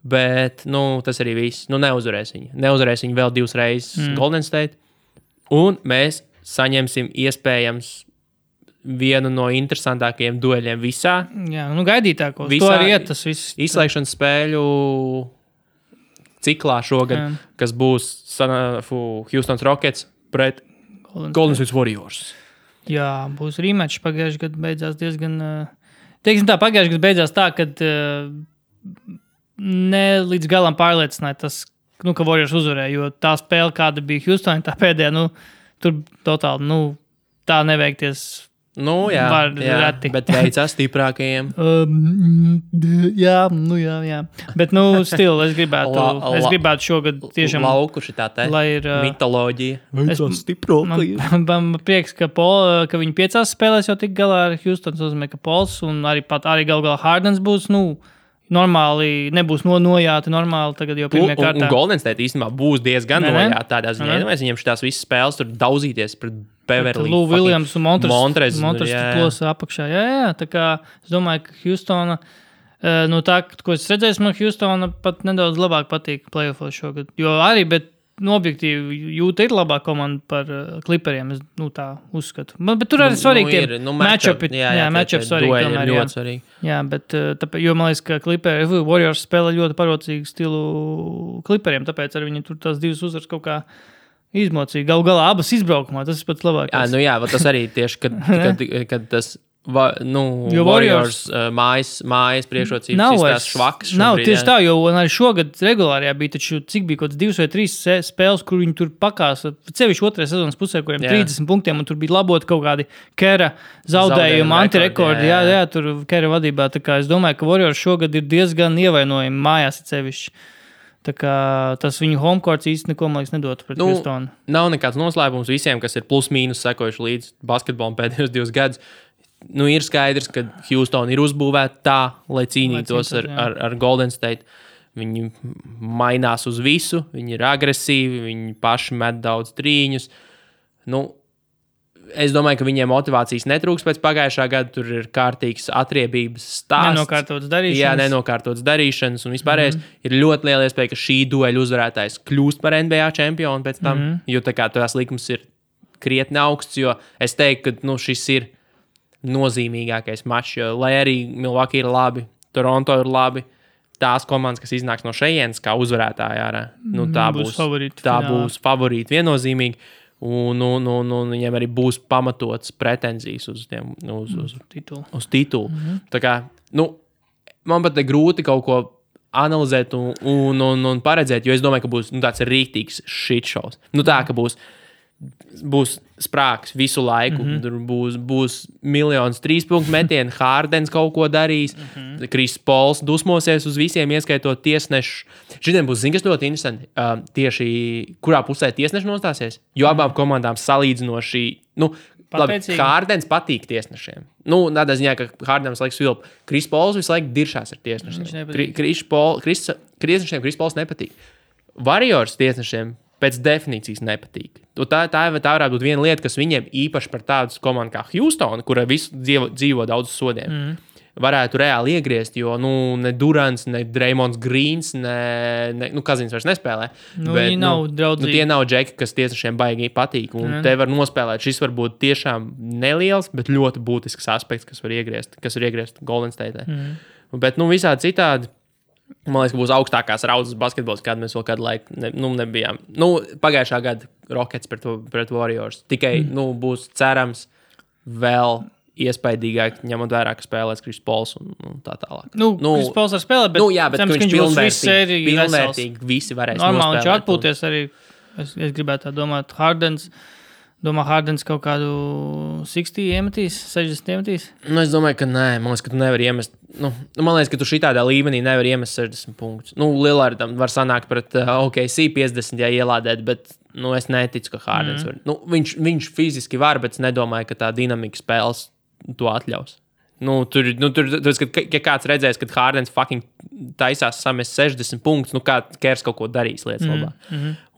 Bet, tas arī viss. Neuzvarēs viņi. Neuzvarēs viņi vēl 2 reizes Golden State. Un mēs saņemsim iespējams vienu no interesantākajiem dueļiem visā. Jā, gaidītākos. To arī iet tas viss. Izslēgšanas spēļu ciklā šogad, kas būs Houston Rockets pret Golden State Warriors. Jā, būs rematch. Pagājušajā gadā beidzās diezgan... Teiksim tā, pagājušajā gadā beidzās tā, kad ne līdz galam pārliecināja tas, ka Warriors uzvarēja, jo tā spēle, kāda bija Houston, tā pēdējā, tur totāli, tā neveikties... Jā, bet veicās stiprākajiem. Jā. Bet, es gribētu šogad tiešām... Lauku šitā te mitoloģija. Veicās stiprākajiem. Man prieks, ka viņi 5 spēlēs jau tik galā ar Houston. Tas nozīmē, ka Pols un arī galā Hardens būs, normāli, nebūs nojāti normāli tagad jau pirmajā kārtā. Un Golden State īstenībā būs diezgan nojāti tādā ziņā. Mēs viņiem šitās visas spēles tur daudzīties pret Beverly. Lou Williams un Montres plosa apakšā. Jā. Tā kā es domāju, ka Houstona, tā, ko es redzēju, man Houstona pat nedaudz labāk patīk playoffos šogad. Jo arī, bet objektīvi Jūta ir labā komanda par Clipperiem, es tā uzskatu. Bet tur arī svarīgi tie matchupi. Jā, matchupi svarīgi tomēr. Ļoti svarīgi. Jā, bet jo man liekas, ka Warriors spēlē ļoti parocīgu stilu Clipperiem, tāpēc arī viņi tur tās 2 uzvaras kaut kā izmocīja. Galu galā abas izbraukumā, tas ir pats labākais. Jā, tas arī tieši, kad tas Warriors mājas priekšrocības izstās švaks. Nav tieši tā, jo arī šogad regulārajā bija taču, cik bija kaut 2 vai 3 spēles, kur viņi tur pakāsa, cevišķi 2. sezonas pusē, kuriem 30 punktiem, un tur bija labot kaut kādi Kera zaudējumi, antirekordi. Jā, tur Kera vadībā. Tā kā es domāju, ka Warriors šogad ir diezgan ievainojami mājās cevišķi. Tā kā tas viņu homecourts īsti neko, man liekas, nedotu pret Houstonu. Nav nekāds noslēpums visiem, kas ir plus-mīnus sekojuši līdz basketbolam pēdējos 2 gadus. Ir skaidrs, ka Houston ir uzbūvēta tā, lai cīnītos ar Golden State. Viņi mainās uz visu, viņi ir agresīvi, viņi paši met daudz trīņus. Es domāju, ka viņiem motivācijas netrūks pēc pagājušā gada. Tur ir kārtīgs atriebības stāsts. Nenokārtotas darīšanas. Un vispārējais ir ļoti liela iespēja, ka šī dueļa uzvarētājs kļūst par NBA čempionu pēc tam. Jo tā kā tās likums ir krietni augsts, jo es teiktu, ka šis ir nozīmīgākais mačs, jo lai arī Milwaukee ir labi, Toronto ir labi, tās komandas, kas iznāks no šejienes kā uzvarētāji ārā, tā būs favorīti viennozīmīgi, un viņiem arī būs pamatots pretenzijas uz titulu. Tā kā, man pat ir grūti kaut ko analizēt un paredzēt, jo es domāju, ka būs tāds rītīgs shitshows. Tā, ka būs sprāgs visu laiku. Tur būs miljonus 3-punktu metienu, Hardens kaut ko darīs, Kris Pols dusmosies uz visiem, ieskaitot tiesnešu. Šitiem būs, kas ļoti interesanti, tieši kurā pusē tiesneši nostāsies, jo abām komandām salīdzinoši, Hardens patīk tiesnešiem. Tādā ziņā, ka Hardens laiks vilp. Kris Pols visu laiku diršās ar tiesnešiem. Tiesnešiem Kris Pols nepatīk. Warriors tiesnešiem pēc definīcijas nepatīk. Tā varētu būt viena lieta, kas viņiem īpaši par tādu komandu kā Houston, kura visu dzīvo daudz sodiem, varētu reāli iegriezt, jo ne Durants, ne Draymonds Greens, ne Kazins vairs nespēlē. Viņi nav draudzīgi. Tie nav džeki, kas tiesnešiem baigi patīk. Un te var nospēlēt. Šis var būt tiešām neliels, bet ļoti būtisks aspekts, kas var iegriezt Golden State. Bet visādi citādi, man liekas, ka būs augstākās raudzes basketbols, kādu mēs vēl kādu laiku nebijām. Pagājušā gada Rockets pret Warriors. Tikai būs cerams vēl iespaidīgāk, ņemot vērā, ka spēlēs Kris Pols un tā tālāk. Kris Pols var spēlēt, bet, bet viņš būs pilnvērtīgi visi varēs nospēlēt. Normāli viņš atpūties arī, es gribētu tā domāt, Hardens kaut kādu 60 iemetīs, 60 iemetīs? Es domāju, ka nē. Man liekas, ka tu nevari iemest. Man liekas, ka tu šitādā līmenī nevari iemest 60 punktus. Lillardam var sanākt pret OKC 50, ja ielādēt, bet es neticu, ka Hardens var. Viņš fiziski var, bet es nedomāju, ka tā dinamika spēles to atļaus. Tur ja kāds redzēs, kad Hārdens fucking taisās samest 60 punktus, kā Kers kaut ko darīs lietas labā.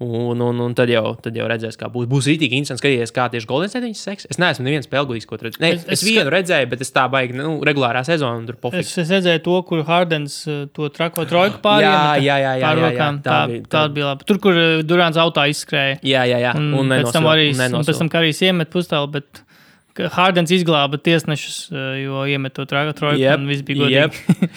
Un tad jau redzēs, kā būs. Būs rītīgi interesanti skatīties, kā tieši Golden State viņus seks. Es neesmu neviens spēlgudīgs, ko tur redzēju. Es vienu redzēju, bet es tā baigi, regulārā sezonā tur pofiks. Es redzēju to, kur Hārdens to trako trojku pāriem. Jā. Tā bija labi. Tur, kur Durants autā izskrēja. Jā. Un pēc tam Karijs iemet pustālu, bet Hārdens izglāba tiesnešus, jo iemet to trojku un viss bija godīgi.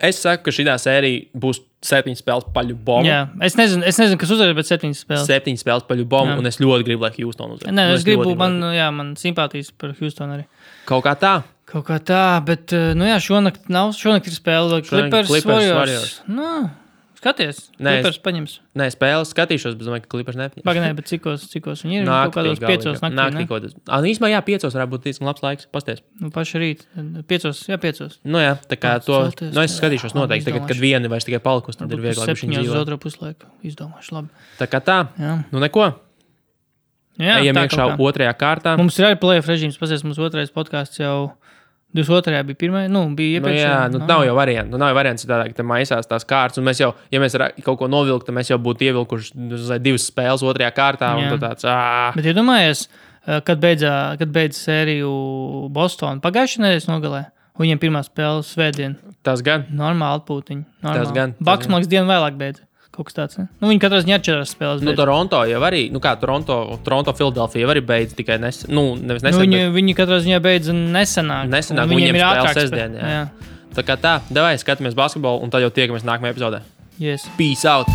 Es saku, ka šitā sērija būs 7 spēles paļu bombu. Jā, es nezinu, kas uzvarēs, bet 7 spēles. 7 spēles paļu bombu, un es ļoti gribu, lai Houston uzvarēs. Nē, es gribu, man simpātijas par Houston arī. Kaut kā tā, bet, šonakt ir spēle Clippers Warriors. Skaties, Clippers paņems. Nē, spēles skatīšos, bet domāju, ka Clippers nepaņems. Pagaidām, bet cikos viņi ir? Kaut kādos 5 naktī, ne? Īsmā 5 varētu būt diezgan labs laiks, pasties. Paši rīt, 5. Tā kā to, es skatīšos noteikti, tagad, kad vieni vairs tikai palikusi, tad ir vieglāk bišķiņ dzīvot. 7 uz 2 puslaiku, izdomāšu labi. Tā kā tā, neko. Ejam iekšā 2. kārtā. Mums ir arī playoff režīms, pasties, mums 2. podcasts jau 22. bija 1. Bija iepriekš. Nav jau variants. Nav jau variants tādā, ka te maisās tās kārtas. Un mēs jau, ja mēs kaut ko novilktu, tad mēs jau būtu ievilkuši 2 spēles 2. kārtā. Un tāds, Bet iedomājies, kad beidz sēriju Boston pagājušajā nedēļas nogalē. Viņiem pirmā spēle svētdien. Tas gan. Normāli atpūtiņi. Tas gan. Baks man liekas dienu vēlāk beidz. Kaut kas tāds, ne? Viņi katrā ziņā 4 spēles beidz. Toronto jau arī, Toronto, Philadelphia jau arī beidz tikai nesen. Nevis nesen. Viņi katrā ziņā beidz nesenāk. Viņiem ir ātrāk sestdien, jā. Tā kā tā, davai, skatāmies basketbolu un tad jau tiekamies nākamajā epizodē. Yes. Peace out!